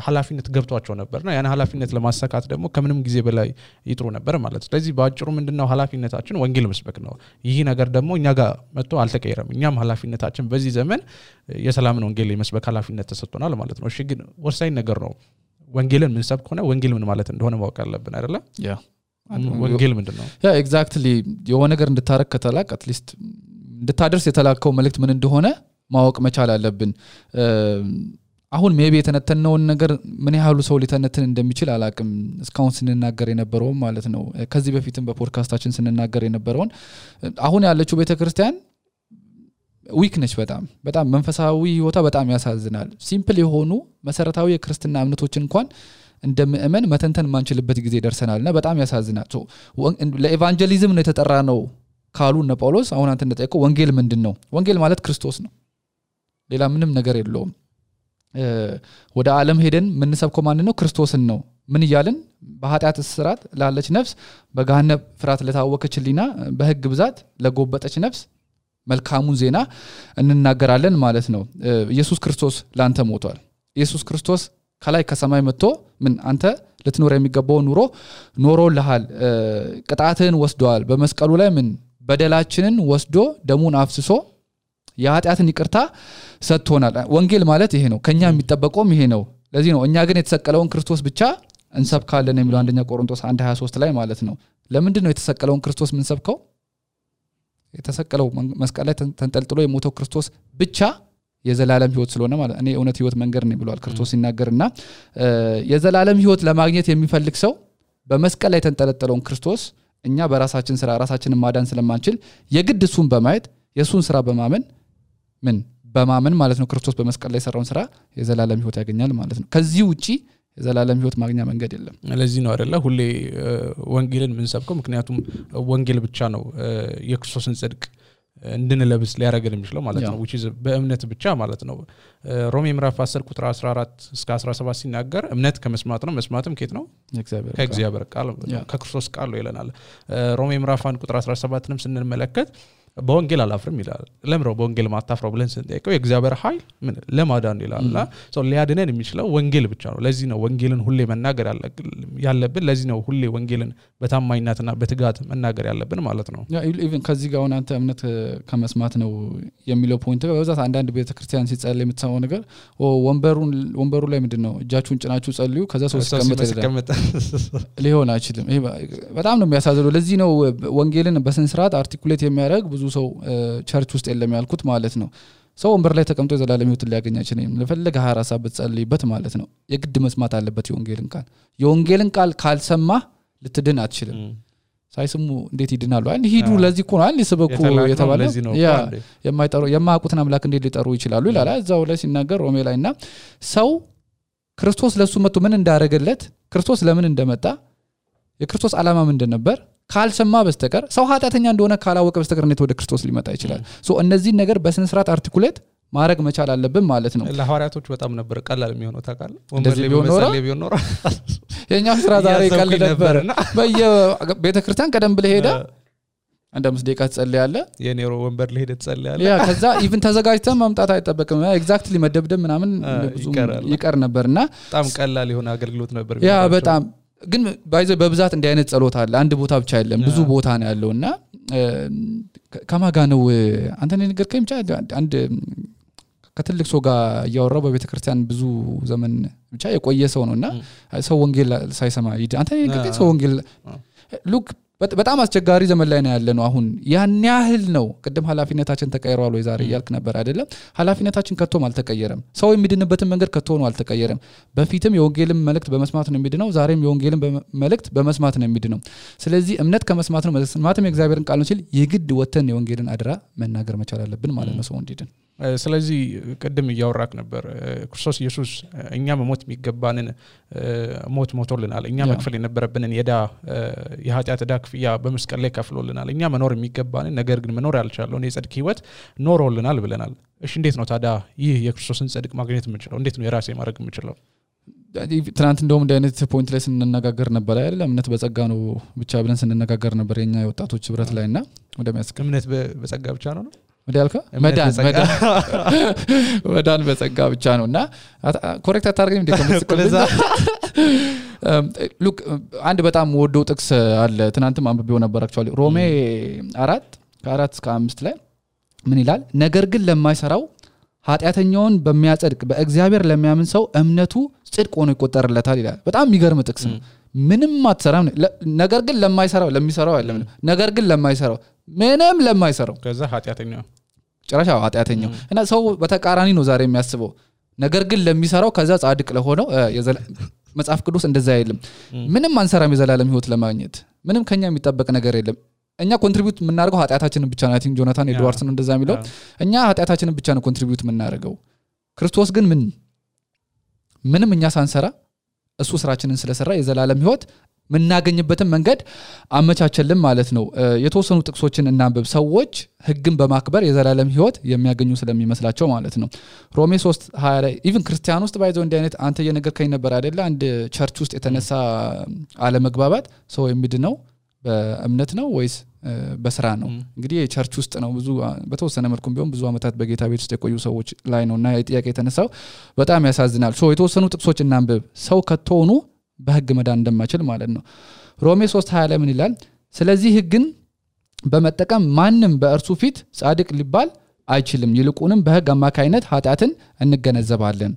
Speaker 1: ኃላፊነት ገብቷቸው ነበርና ያን ኃላፊነት ለማሳካት ደግሞ ከምንም ጊዜ በላይ ይጥሩ ነበር ማለት ስለዚህ ባጭሩ ምንድነው ኃላፊነታችን ወንጌል መስበክ ነው ይህ ነገር ደግሞ እኛ ጋር መጥቶ አልተቀየረም እኛም ኃላፊነታችን በዚህ ዘመን የሰላምን ወንጌል የመስበክ ኃላፊነት ተሰጥቶናል ማለት ነው እሺ ግን ወሳኝ ነገር ነው ወንጌልን ምን ሰብክ ሆነ ወንጌል ምን ማለት እንደሆነ ማወቅ አለብን አይደለ
Speaker 2: ያ
Speaker 1: ወንጌል ምንድነው
Speaker 2: ያ ኤግዛክትሊ የሆነ ነገር እንድታረክ ከተላቅ አትሊስት እንድታደርስ የተላከው መልእክት ምን እንደሆነ ማወቅ መቻል አለብን አሁን ሜቢ የተነተነውን ነገር ምን ያህሉ ሰው ሊተነተን እንደሚችል አላቅም እስካሁን ስንናገር የነበረው ማለት ነው ከዚህ በፊትም በፖድካስታችን ስንናገር የነበረውን አሁን ያለችው ቤተክርስቲያን ዊክ ነች በጣም መንፈሳዊ ህይወታ በጣም ያሳዝናል ሲምፕል የሆኑ መሰረታዊ የክርስትና እምነቶችን እንኳን እንደምእመን መተንተን ማንችልበት ጊዜ ደርሰናልና በጣም ያሳዝናል ለኤቫንጀሊዝም ነው የተጠራ ነው ካሉ እነ ጳውሎስ አሁን አንተ እንደጠየቀው ወንጌል ምንድነው ወንጌል ማለት ክርስቶስ ነው ሌላ ምንም ነገር የለውም ወደ ዓለም ሄደን ምን ሰብከው ማን ነው ክርስቶስን ነው ምን ይያልን በኃጢአት እስራት ላለች ነፍስ በገሃነም ፍርሃት ለታወከችሊና በህግ ብዛት ለጎበጠች ነፍስ መልካሙን ዜና እንናገራለን ማለት ነው ኢየሱስ ክርስቶስ ላንተ ሞቷል ኢየሱስ ክርስቶስ ከላይ ከሰማይ መጥቶ ምን አንተ ልትኖር የሚገባው ኑሮ ኖሮልሃል ቅጣትን ወስዷል በመስቀሉ ላይ ምን በደላችንን ወስዶ ደሙን አፍስሶ የኃጢአትን ይቅርታ ሰጥቶናል ወንጌል ማለት ይሄ ነው ከኛ የሚጠበቀውም ይሄ ነው ለዚህ ነው እኛ ግን የተሰቀለውን ክርስቶስ ብቻ እንሰብካለን የሚለው አንደኛ ቆሮንቶስ 1:23 ላይ ማለት ነው ለምንድን ነው የተሰቀለውን ክርስቶስ ምን ሰብከው የተሰቀለው መስቀል ላይ ተንጠልጥሎ የሞተው ክርስቶስ ብቻ የዘላለም ህይወት ስለሆነ ማለት እኔ እውነት ህይወት መንገድ ነው ብሏል ክርስቶስ ሲናገርና የዘላለም ህይወት ለማግኘት የሚፈልግ ሰው በመስቀል ላይ ተንጠለጠለውን ክርስቶስ እኛ በራሳችን ስራ ራሳችንን ማዳን ስለማንችል የግድ እሱን በማየት የሱን ስራ በማመን ማለት ነው ክርስቶስ በመስቀል ላይ ሰራውን ስራ የዘላለም ህይወት ያገኛል ማለት ነው ከዚህ ውጪ የዘላለም ህይወት ማግኛ መንገድ የለም
Speaker 1: ለዚህ ነው አይደለ ሁሌ ወንጌልን ምን ሰብከው ምክንያቱም ወንጌል ብቻ ነው የክርስቶስን ጽድቅ እንድንለብስ ሊያረጋግጥ የሚችለው ማለት ነው which is በእምነት ብቻ ማለት ነው ሮሜ ምዕራፍ 10 ቁጥር 14 እስከ 17 ሲናገር እምነት ከመስማት ነው መስማትም ከየት ነው ከእግዚአብሔር ቃል ከክርስቶስ ቃል ነው ይለናል ሮሜ ምዕራፍ 1 ቁጥር 17ንም ስንመለከት በወንጌል አላፍርም ይላል ለምሮ በወንጌል ማታፍረው ብለን ስንጠይቀው የእግዚአብሔር ኃይል ምን ለማዳን ይላልና ሶ ሊያድነን የሚችለው ወንጌል ብቻ ነው ለዚህ ነው ወንጌልን ሁሌ መናገር ያለብን ለዚህ ነው ሁሌ ወንጌልን በታማኝነትና በትጋት መናገር ያለብን ማለት ነው
Speaker 2: ያ ኢቭን ከዚህ ጋር አንተ እምነት ከመስማት ነው የሚለው ፖይንት በዛት አንዳንድ ቤተክርስቲያን ሲጸልይ የምትሰማው ነገር ወንበሩ ላይ ምንድነው እጃችሁን ጭናችሁ ጸልዩ ከዛ ሰው ሲቀመጥ ሊሆን አይችልም ይሄ በጣም ነው የሚያሳዝነው ለዚህ ነው ወንጌልን በስንስራት አርቲኩሌት የሚያደርግ ብዙ ሰው ቸርች ውስጥ የለም ያልኩት ማለት ነው ሰው ወንበር ላይ ተቀምጦ የዘላለም ህይወት ሊያገኝ አይችልም ለፈለገ 24 ሰዓት ብትጸልይበት ማለት ነው የግድ መስማት አለበት የወንጌልን ቃል ካልሰማ ልትድን አትችልም ሳይስሙ እንዴት ይድናሉ ሂዱ ለዚህ እኮ ነው ሊሰበኩ የተባለው ያ የማያውቁትን አምላክ እንዴት ሊጠሩ ይችላሉ ይላል እዛው ላይ ሲናገር ሮሜ ላይና ሰው ክርስቶስ ለሱ መጥቶ ምን እንዳረገለት ክርስቶስ ለምን እንደመጣ የክርስቶስ ዓላማ ምንድን ነበር ካልሰማ በስተቀር ሰው ኃጢአተኛ እንደሆነ ካላወቀ በስተቀር እንዴት ወደ ክርስቶስ ሊመጣ ይችላል ሶ እነዚህ ነገር በስነ ስርዓት አርቲኩሌት ማድረግ መቻል አለብን ማለት ነው
Speaker 1: ለሐዋርያቶች በጣም ነበር ቀላል የሚሆነው ታውቃለህ ወንበር ላይ በመሰለ ቢሆን ኖር
Speaker 2: የኛ ስራ ዛሬ ቀል ነበር በየቤተክርስቲያን ቀደም ብለ ሄደ አንድ 5 ደቂቃ ትጸልያለህ
Speaker 1: የኔሮ ወንበር ላይ ሄደ ትጸልያለህ
Speaker 2: ያ ከዛ ኢቭን ተዘጋጅተህ መምጣት አይጠበቅም ኤግዛክትሊ መደብደብ ምናምን ብዙ ይቀር ነበርና
Speaker 1: በጣም ቀላል የሆነ አገልግሎት ነበር
Speaker 2: ያ በጣም ግን ባይዘ በብዛት እንዲህ አይነት ጸሎት አለ አንድ ቦታ ብቻ አይደለም ብዙ ቦታ ነው ያለውና ከማጋ ነው አንተ ንገርከኝ ብቻ አንድ ከትልቅ ሰው ጋር ያወራው በቤተክርስቲያን ብዙ ዘመን ብቻ የቆየ ሰው ነውና ሰው ወንጌል ሳይሰማ አንተ ንገርከኝ ሰው ወንጌል ሉክ በጣም አስቸጋሪ ዘመን ላይ ነው ያለነው አሁን ያን ያህል ነው ቅድም ኃላፊነታችን ተቀይሯል ወይ ዛሬ ያልክ ነበር አይደለም ኃላፊነታችን ከቶም አልተቀየረም ሰው የሚድንበትን መንገድ ከቶ ነው አልተቀየረም በፊትም የወንጌልን መልእክት በመስማት ነው የሚድነው ዛሬም የወንጌልን መልእክት በመስማት ነው የሚድነው ስለዚህ እምነት ከመስማት ነው መስማትም የእግዚአብሔርን ቃል ነው ሲል የግድ ወተን የወንጌልን አድራ መናገር መቻል አለብን ማለት ነው ሰው እንዲድን
Speaker 1: ስለዚህ ቀደም ያወራክ ነበር ክርስቶስ ኢየሱስ እኛ መሞት የሚገባንን ሞት ሞቶልናል እኛ መክፈል የነበረብንን የኃጢአት ዕዳ ክፍያ በመስቀል ላይ ከፍሎልናል እኛ መኖር የሚገባንን ነገር ግን መኖር ያልቻለውን የጽድቅ ህይወት ኖሮልናል ብለናል እሺ እንዴት ነው ታዲያ ይህ የክርስቶስን ጽድቅ ማግኘት የምንችለው እንዴት ነው የራሴ ማድረግ የምንችለው
Speaker 2: ትናንት እንደውም እንደ አይነት ፖይንት ላይ ስንነጋገር ነበር አይደል እምነት በጸጋ ነው ብቻ ብለን ስንነጋገር ነበር የኛ የወጣቶች ህብረት ላይና ወደሚያስከ
Speaker 1: እምነት በጸጋ ብቻ ነው
Speaker 2: ወዲያልከ መዳን በጸጋ ብቻ ነውና ኮሬክት አታርገኝ እንደከመስከለዛ ሉክ አንድ በጣም ወዶ ጥቅስ አለ ትናንትም አንብቤው ነበር አክቹአሊ ሮሜ 4:4 እስከ 5 ላይ ምን ይላል ነገር ግን ለማይሰራው ኃጢአተኛውን በሚያጸድቅ በእግዚአብሔር ለሚያምን ሰው እምነቱ ጽድቅ ሆኖ ይቆጠርለታል ይላል በጣም የሚገርም ጥቅስ ነው ምንም አትሰራም ነገር ግን ለማይሰራው ለሚሰራው አይደለም ነገር ግን ለማይሰራው ምንም ለማይሰራው
Speaker 1: ከዛ ኃጢአተኛው
Speaker 2: ጭራሽ ኃጢአተኛው እና ሰው በተቃራኒ ነው ዛሬ የሚያስበው ነገር ግን ለሚሰራው ከዛ ጻድቅ ለሆነው መጽሐፍ ቅዱስ እንደዛ አይልም ምንም አንሰራም የዘላለም ህይወት ለማግኘት ምንም ከኛ የሚጠበቅ ነገር የለም እኛ ኮንትሪቢዩት የምናደርገው ኃጢአታችንን ብቻ ነው አይ ቲንክ ጆናታን ኤድዋርድስ ነው እንደዛ የሚለው እኛ ኃጢአታችንን ብቻ ነው ኮንትሪቢዩት የምናደርገው ክርስቶስ ግን ምንም እኛ ሳንሰራ እሱ ስራችንን ስለሰራ የዘላለም ህይወት ምናገኝበትን መንገድ አመቻቸልን ማለት ነው የተወሰኑ ጥቅሶችን እናንብብ ሰዎች ህግን በማክበር የዘላለም ህይወት የሚያገኙ ስለሚመስላቸው ማለት ነው ሮሜ 3:20 ላይ ኢቭን ክርስቲያን ውስጥ ባይዘው እንደ አይነት አንተ የነገርከኝ ነበር አይደለ አንድ ቸርች ውስጥ የተነሳ አለመግባባት ሰው የሚድነው በእምነት ነው ወይስ በስራ ነው እንግዲህ የቸርች ውስጥ ነው ብዙ በተወሰነ መልኩም ቢሆን ብዙ አመታት በጌታ ቤት ውስጥ የቆዩ ሰዎች ላይ ነውና የጥያቄ የተነሳው በጣም ያሳዝናል የተወሰኑ ጥቅሶች እናንብብ ሰው ከተሆኑ በህግ መዳን እንደማይችል ማለት ነው ሮሜ 3:20 ላይ ምን ይላል ስለዚህ ህግን በመጠቀም ማንንም በእርሱ ፊት ጻድቅ ሊባል አይችልም ይልቁንም በህግ አማካይነት ኃጢአትን እንገነዘባለን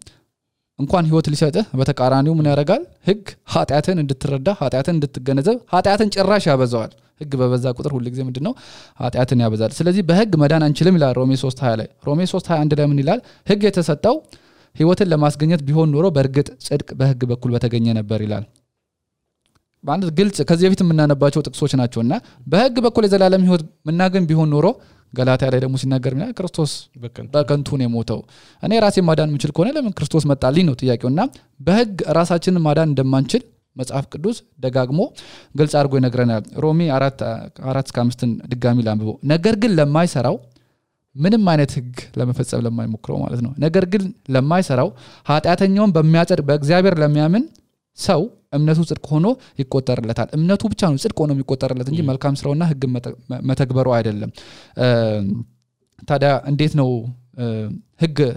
Speaker 2: እንኳን ህይወት ሊሰጥህ በተቃራኒው ምን ያደርጋል ህግ ኃጢአትን እንድትረዳ ኃጢአትን እንድትገነዘብ ኃጢአትን ጭራሽ ያበዛዋል ህግ በበዛ ቁጥር ሁሉ ጊዜ ምንድነው ኃጢአትን ያበዛል ስለዚህ በህግ መዳን አንችልም ይላል ሮሜ 3:20 ላይ ሮሜ 3:21 ላይ ምን ይላል ህግ የተሰጠው ህይወትን ለማስገኘት ቢሆን ኖሮ በእርግጥ ጽድቅ በህግ በኩል በተገኘ ነበር ይላል ባንድ ግልጽ ከዚህ በፊት የምናነባቸው ጥቅሶች ናቸውና በህግ በኩል የዘላለም ህይወት መናገን ቢሆን ኖሮ ገላትያ ላይ ደግሞ ሲናገር ምን ክርስቶስ በከንቱ ነው የሞተው እኔ ራሴን ማዳን የምችል ከሆነ ለምን ክርስቶስ መጣልኝ ነው ጥያቄውና በህግ ራሳችንን ማዳን እንደማንችል መጽሐፍ ቅዱስ ደጋግሞ ግልጽ አድርጎ ይነግረናል ሮሜ 4:5 ድጋሚ ላንብበው ነገር ግን ለማይሰራው ምንም አይነት ህግ ለመፈጸም ለማይሞክረው ማለት ነው ነገር ግን ለማይሰራው ኃጢአተኛውን በሚያጸድቅ በእግዚአብሔር ለሚያምን ሰው እምነቱ ጽድቅ ሆኖ ይቆጠርለታል እምነቱ ብቻ ነው ጽድቅ ሆኖ የሚቆጠርለት እንጂ መልካም ስራውና ህግ መተግበሩ አይደለም ታዲያ እንዴት ነው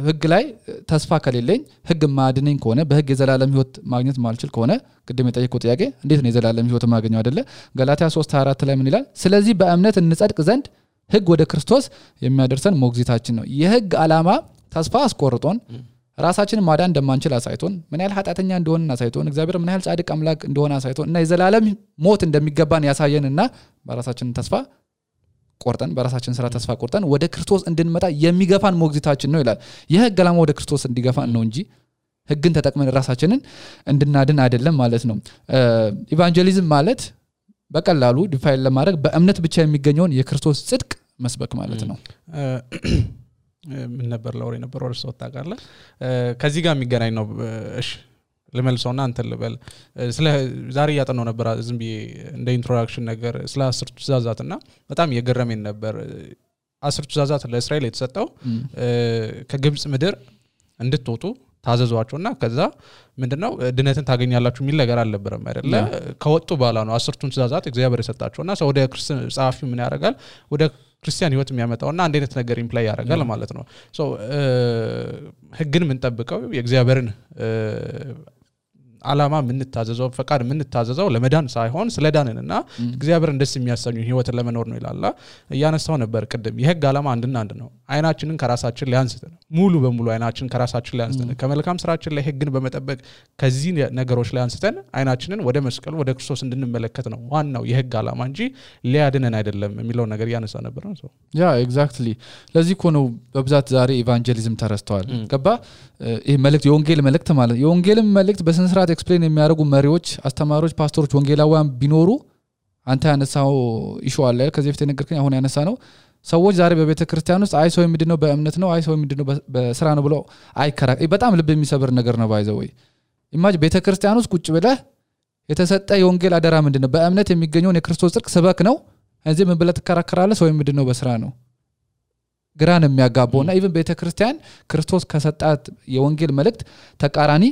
Speaker 2: ህግ ላይ ተስፋ ከሌለኝ ህግ ማድነኝ ከሆነ በህግ የዘላለም ህይወት ማግኘት ማልችል ከሆነ ቅድም የጠየቀው ጥያቄ እንዴት ነው የዘላለም ህይወት ማግኘው አይደለ ገላትያ 3:24 ላይ ምን ይላል ስለዚህ በእምነት እንጸድቅ ዘንድ ህግ ወደ ክርስቶስ የሚያደርሰን ሞግዚታችን ነው የህግ ዓላማ ተስፋ አስቆርጦን ራሳችንን ማዳን እንደማንችል አሳይቶን ምን ያህል ኃጢአተኛ እንደሆነን አሳይቶን እግዚአብሔር ምን ያህል ጻድቅ አምላክ እንደሆነ አሳይቶን እና የዘላለም ሞት እንደሚገባን ያሳየንና በራሳችን ተስፋ ቆርጠን በራሳችን ስራ ተስፋ ቆርጠን ወደ ክርስቶስ እንድንመጣ የሚገፋን ሞግዚታችን ነው ይላል የህግ ዓላማ ወደ ክርስቶስ እንዲገፋን ነው እንጂ ህግን ተጠቅመን ራሳችንን እንድናድን አይደለም ማለት ነው ኢቫንጀሊዝም ማለት በቀላሉ ዲፋይን ለማድረግ በእምነት ብቻ የሚገኘውን የክርስቶስ ጽድቅ መስበክ ማለት ነው
Speaker 1: ምን ነበር ለወሬ ነበር ወርሶ ታቃለ ከዚህ ጋር የሚገናኝ ነው እሺ ለመልሶና አንተ ልበል ስለ ዛሬ ያጠናው ነበር ዝም ብዬ እንደ ኢንትሮዳክሽን ነገር ስለ 10 ትእዛዛትና በጣም የገረመኝ ነበር 10 ትእዛዛት ለእስራኤል የተሰጠው ከግብጽ ምድር እንድትወጡ ታዘዟቸውና ከዛ ምንድነው ድነትን ታገኛላችሁ የሚል ነገር አልነበረም አይደለ ከወጡ በኋላ ነው 10ቱን ትእዛዛት እግዚአብሔር የሰጣቸውና ሰው ወደ ክርስቲያን ጻፊው ምን ያደርጋል ወደ ክርስቲያን ህይወት የሚያመጣውና አንድ አይነት ነገር ኢምፕላይ ያደርጋል ማለት ነው ሶ ህግን ምን ጠብቀው የእግዚአብሔርን ዓላማ ምን ታዘዘው ፈቃድ ምን ታዘዘው ለመዳን ሳይሆን ስለዳንንና እግዚአብሔርን ደስ የሚያሰኙ ህይወትን ለመኖር ነው ይላል ያነሳው ነበር ቀደም የህግ ዓላማ አንድና አንድ ነው አይናችንን ከራሳችን ላይ አንስተን ሙሉ በሙሉ አይናችንን ከራሳችን ላይ አንስተን ከመልካም ስራችን ላይ ህግን በመጠበቅ ከዚህ ነገሮች ላይ አንስተን አይናችንን ወደ መስቀል ወደ ክርስቶስ እንድንመለከት ነው ዋናው የህግ ዓላማ እንጂ ሊያድነን አይደለም የሚለው ነገር ያነሳ ነበር ነው
Speaker 2: ያ ኤግዛክትሊ ለዚህ ኮ ነው በብዛት ዛሬ ኢቫንጀሊዝም ተረስተዋል ገባ ይሄ መልእክት የወንጌል መልእክት ማለት የወንጌልም መልእክት በስንስራት ኤክስፕሌን የሚያደርጉ መሪዎች አስተማሪዎች ፓስተሮች ወንጌላውያን ቢኖሩ አንተ ያነሳው ኢሹ አለ ከዚህ በፊት ነገርከኝ አሁን ያነሳ ነው ሰዎች ዛሬ በቤተክርስቲያን ውስጥ አይ ሰው ምንድነው በእምነት ነው አይ ሰው ምንድነው በስራ ነው ብለው አይከራከ በጣም ልብ የሚሰብር ነገር ነው ባይዘው ወይ ኢማጅ ቤተክርስቲያን ውስጥ ቁጭ ብለህ የተሰጠ የወንጌል አደራ ምንድነው በእምነት የሚገኘው የክርስቶስ ጽድቅ ስበክ ነው እዚህ ምን ብለህ ተከራከራለህ ሰው ምንድነው በስራ ነው ግራን የሚያጋባውና ኢቭን ቤተክርስቲያን ክርስቶስ ከሰጣት የወንጌል መልእክት ተቃራኒ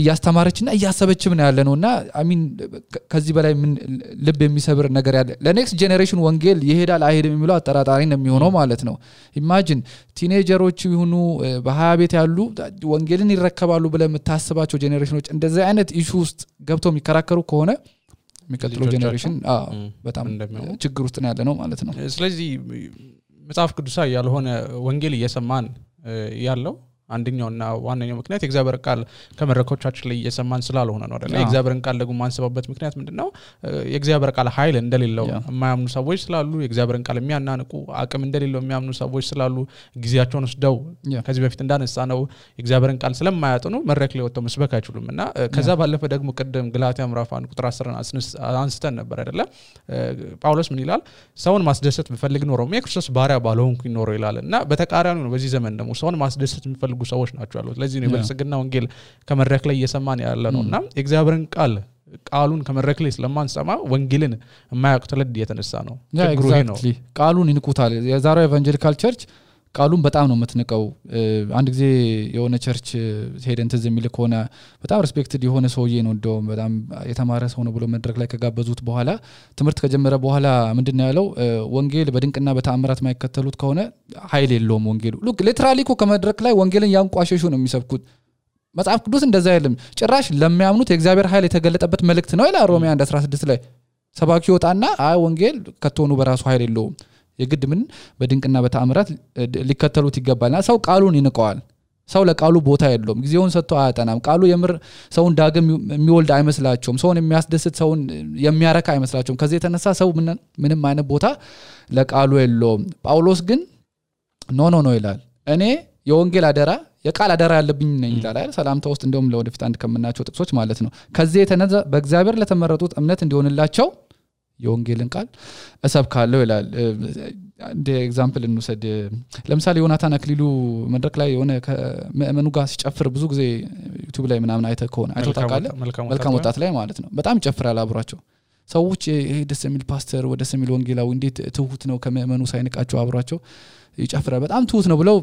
Speaker 2: ያስተማረችና ያሰበችም ነው ያለነውና አሚን ከዚህ በላይ ምን ልብ የሚሰብር ነገር ያለ ለኔክስት ጄኔሬሽን ወንጌል ይሄዳል አይሄድም የሚለው አጠራጣሪ ነው የሚሆነው ማለት ነው ኢማጂን ቲኔጀሮች ይሁኑ በ20 ቤት ያሉ ወንጌልን ይረከባሉ ብለ የምታስባቸው ጄኔሬሽኖች እንደዚህ አይነት ኢሹ ውስጥ ገብተው የሚከራከሩ ከሆነ የሚቀጥለው ጄኔሬሽን በጣም ችግር ውስጥ ነው ያለነው ማለት ነው
Speaker 1: ስለዚህ መጽሐፍ ቅዱሳዊ ያልሆነ ወንጌል እየሰማን ያለው አንደኛውና ዋነኛው ምክንያት የእግዚአብሔር ቃል ከመረኮቻችን ላይ እየሰማን ስላልሆነ ነው አይደል የእግዚአብሔርን ቃል ደግሞ ማንሰባበት ምክንያት ምንድነው የእግዚአብሔር ቃል ኃይል እንደሌለው የማያምኑ ሰዎች ስላሉ የእግዚአብሔርን ቃል የሚያናንቁ አቅም እንደሌለው የሚያምኑ ሰዎች ስላሉ ጊዜያቸውን ወስደው ከዚህ በፊት እንዳነሳ ነው የእግዚአብሔርን ቃል ስለማያጠኑ መድረክ ላይ ወጥተው መስበክ አይችሉምና ከዛ ባለፈ ደግሞ ቀደም ገላትያ ምዕራፍ 1 ቁጥር 10 አንስተን ነበር አይደል ጳውሎስ ምን ይላል ሰውን ማስደሰት ቢፈልግ ኖሮ የክርስቶስ ባሪያ ባልሆንኩኝ ኖሮ ይላልና በተቃራኒው ነው በዚህ ዘመን ደግሞ ሰውን ማስደሰት ቢፈልጉ ሰዎች ናቸው ያሉት ለዚህ ነው በልጽግና ወንጌል ከመድረክ ላይ እየሰማን ያለ ነውና የእግዚአብሔርን ቃል ቃሉን ከመድረክ ላይ ስለማንሰማ ወንጌልን የማያውቁ ትውልድ የተነሳ ነው
Speaker 2: ችግሩ ይሄ ነው ቃሉን ይንቁታል የዛሬው ኢቫንጀሊካል ቸርች ቃሉን በጣም ነው የምትንቀው አንድ ጊዜ የሆነ ቸርች ሄደን ትዝ የሚል ከሆነ በጣም ሪስፔክትድ የሆነ ሰውዬ ነው እንደውም በጣም የተማረ ሰው ነው ብሎ መድረክ ላይ ከጋበዙት በኋላ ትምህርት ከጀመረ በኋላ ምንድነው ያለው ወንጌል በድንቅና በተአምራት ማይከተሉት ከሆነ ኃይል የለውም ወንጌሉ ሉክ ሊትራሊ እኮ ከመድረክ ላይ ወንጌልን ያንቋሸሹ ነው የሚሰብኩት መጽሐፍ ቅዱስ እንደዛ አይደለም ጭራሽ ለሚያምኑት የእግዚአብሔር ኃይል የተገለጠበት መልእክት ነው ይላል ሮሜ 1:16 ላይ ሰባኪ ወጣና አይ ወንጌል ከተሆኑ በራሱ ኃይል የለውም የግድ ምን በድንቅና በተአምራት ሊከተሉት ይገባልና ሰው ቃሉን ይንቀዋል ሰው ለቃሉ ቦታ የለውም ጊዜውን ሰጥቶ አያጠናም ቃሉ የምር ሰውን ዳግም የሚወልድ አይመስላቸውም ሰውን የሚያስደስት ሰውን የሚያረካ አይመስላቸውም ከዚህ የተነሳ ሰው ምንም አይነት ቦታ ለቃሉ የለውም ጳውሎስ ግን ኖ ይላል እኔ የወንጌል አደራ የቃል አደራ ያለብኝ ነኝ ይላል አይደል ሰላምታ ውስጥ እንደውም ለወደፊት አንድ ከመናቸው ጥቅሶች ማለት ነው ከዚህ የተነሳ በእግዚአብሔር ለተመረጡት እምነት እንዲሆንላቸው የወንጌልን ቃል እሰብካለሁ ይላል እንደ ኤግዛምፕል እንውሰድ ለምሳሌ ዮናታን አክሊሉ መድረክ ላይ የሆነ ከመእመኑ ጋር ሲጨፍር ብዙ ጊዜ ዩቲዩብ ላይ ምናምን አይተ ከሆነ አይተውታቃለ መልካም ወጣት ላይ ማለት ነው በጣም ይጨፍራል አብሯቸው ሰዎች ይሄ ደስ የሚል ፓስተር ወደ ሰሚል ወንጌላዊ እንዴት ትሁት ነው ከመእመኑ ሳይንቃቸው አብሯቸው ይጨፍራል በጣም ትሁት ነው ብለው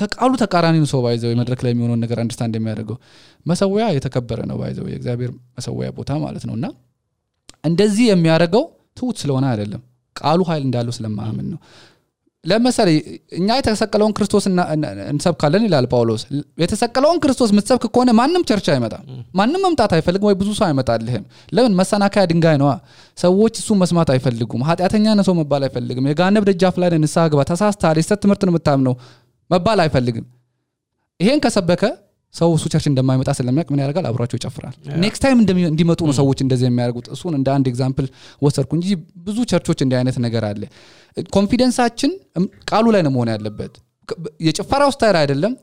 Speaker 2: ከቃሉ ተቃራኒ ነው ሰው ባይዘው መድረክ ላይ የሚሆነው ነገር አንደርስታንድ የሚያደርገው መሰዊያ የተከበረ ነው ባይዘው የእግዚአብሔር መሰዊያ ቦታ ማለት ነውና እንደዚህ የሚያደርገው ትሁት ስለሆነ አይደለም ቃሉ ኃይል እንዳለው ስለማመን ነው ለምሳሌ እኛ የተሰቀለውን ክርስቶስ እንሰብካለን ይላል ጳውሎስ የተሰቀለውን ክርስቶስ ምትሰብክ ከሆነ ማንንም ቸርች አይመጣም ማንንም መምጣት አይፈልግም ወይ ብዙ ሰው አይመጣልህም ለምን መሰናከያ ድንጋይ ነው ሰዎች እሱ መስማት አይፈልጉም ኃጢያተኛ ነው ሰው መባል አይፈልግም የጋነብ ደጃፍ ላይ ንስሐ ግባ ተሳስተሃል የስተት ትምህርት ነው የምታምነው መባል አይፈልግም ይሄን ከሰበከ ሰው እሱ ቸርች እንደማይመጣ ስለሚያውቅ ምን ያደርጋል አብሯቸው ይጨፍራል ኔክስት ታይም እንዲመጡ ነው ሰዎች እንደዚህ የሚያደርጉት እሱን እንደ አንድ ኤግዛምፕል ወሰርኩ እንጂ ብዙ ቸርቾች እንደ አይነት ነገር አለ ኮንፊደንሳችን ቃሉ ላይ ነው መሆን ያለበት የጭፈራው ስታይል አይደለም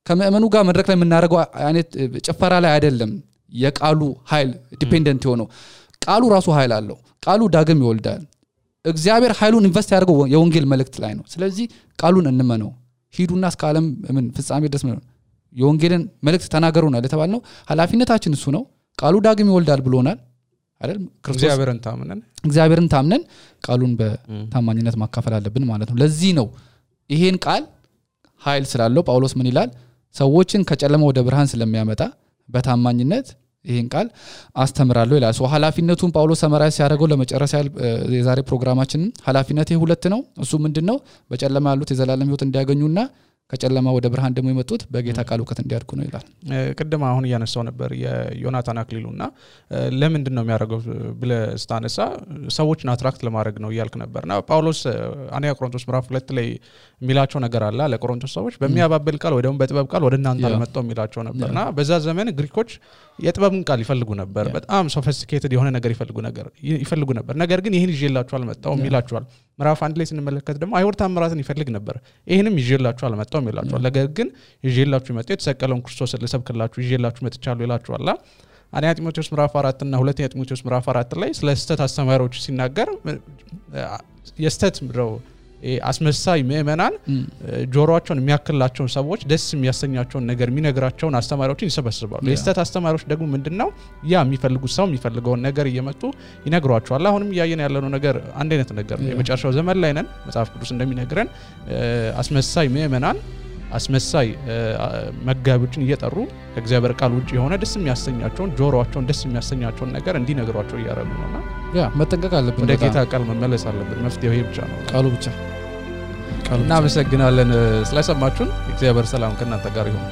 Speaker 2: ከመእመኑ ጋር መድረክ ላይ የምናደርገው አይነት ጭፈራ ላይ አይደለም የቃሉ ኃይል ዲፔንደንት ሆኖ ቃሉ ራሱ ኃይል አለው ቃሉ ዳግም ይወልዳል እግዚአብሔር ኃይሉን ኢንቨስት ያደርገው የወንጌል መልእክት ላይ ነው ስለዚህ ቃሉን እንመነው ሂዱና እስከ ዓለም ምን ፍጻሜ ድረስ ነው የወንጌልን መልእክት ተናገሩና ለተባልነው ኃላፊነታችን እሱ ነው ቃሉ ዳግም ይወልዳል ብሎናል አይደል እግዚአብሔርን ታምነን ቃሉን በታማኝነት ማካፈል አለብን ማለት ነው ለዚህ ነው ይሄን ቃል ኃይል ስላለው ጳውሎስ ምን ይላል ሰዎችን ከጨለማ ወደ ብርሃን ስለሚያመጣ በታማኝነት ይሄን ቃል አስተምራለሁ ይላል ሶ ኃላፊነቱን ጳውሎስ ሰመራይ ሲያደርገው ለመጨረሻ የዛሬ ፕሮግራማችን ኃላፊነቴ ሁለት ነው እሱ ምንድነው በጨለማ ያሉት የዘላለም ህይወት እንዲያገኙና ከጨለማ ወደ ብርሃን ደግሞ የመጡት በጌታ ቃል ዕውቀት እንዲያድጉ ነው ይላል
Speaker 1: ቅድም አሁን ያነሳው ነበር የዮናታን አክሊሉና ለምንድነው የሚያደርገው ብለስታነሳ ሰዎችን አትራክት ለማድረግ ነው ይያልክ ነበርና ጳውሎስ አንያ ቆሮንቶስ ምዕራፍ 2 ላይ የሚላቸው ነገር አለ ለቆሮንቶስ ሰዎች በሚያባብል ቃል ወይ ደግሞ በጥበብ ቃል ወደ እናንተ ለመጣው የሚላቸው ነበርና በዛ ዘመን ግሪኮች የጥበብን ቃል ይፈልጉ ነበር በጣም ሶፊስቲኬትድ የሆነ ነገር ይፈልጉ ነበር ነገር ግን ይሄን ይዤላችሁ አልመጣውም ይላችኋል ምዕራፍ 1 ላይ ስንመለከት ደግሞ አይሁድ ተአምራትን ይፈልግ ነበር ይሄንም ይዤላችሁ አልመጣውም ይላችኋል ነገር ግን ይዤላችሁ መጣው የተሰቀለውን ክርስቶስን ልሰብክላችሁ ይዤላችሁ መጥቻለሁ ይላችኋል አንያ ጢሞቴዎስ ምዕራፍ 4 እና ሁለተኛ ጢሞቴዎስ ምዕራፍ 4 ላይ ስለ ስተት አስተማሪዎች ሲናገር የስተት ምድረው አስመሳይ ምእመናን ጆሮአቸውን የሚያክላቸውን ሰዎች ደስ የሚያሰኛቸውን ነገር የሚነግራቸውን አስተማሪዎችን ይሰበስባሉ የስተት አስተማሪዎች ደግሞ ምንድነው ያ የሚፈልጉት ሰው የሚፈልገውን ነገር እየመጡ ይነግሯቸዋል አሁንም ያየን ያለነው ነገር አንድ አይነት ነገር የመጨረሻው ዘመን ላይ ነን መጽሐፍ ቅዱስ እንደሚነግረን አስመሳይ ምእመናን አስመሳይ መጋቢዎችን እየጠሩ ከእግዚአብሔር ቃል ውጪ የሆነ ደስ የሚያሰኛቸውን ጆሮአቸውን ደስ የሚያሰኛቸውን ነገር እንዲነግሯቸው ያያረጉ ነውና
Speaker 2: መጠንቀቅ አለብን
Speaker 1: ወደ ጌታ ቃል መመለስ አለብን መፍትሄው ይሄ ብቻ ነው
Speaker 2: ቃሉ ብቻ
Speaker 1: እናመሰግናለን ስለሰማችሁን እግዚአብሔር ሰላም ከእናንተ ጋር ይሁን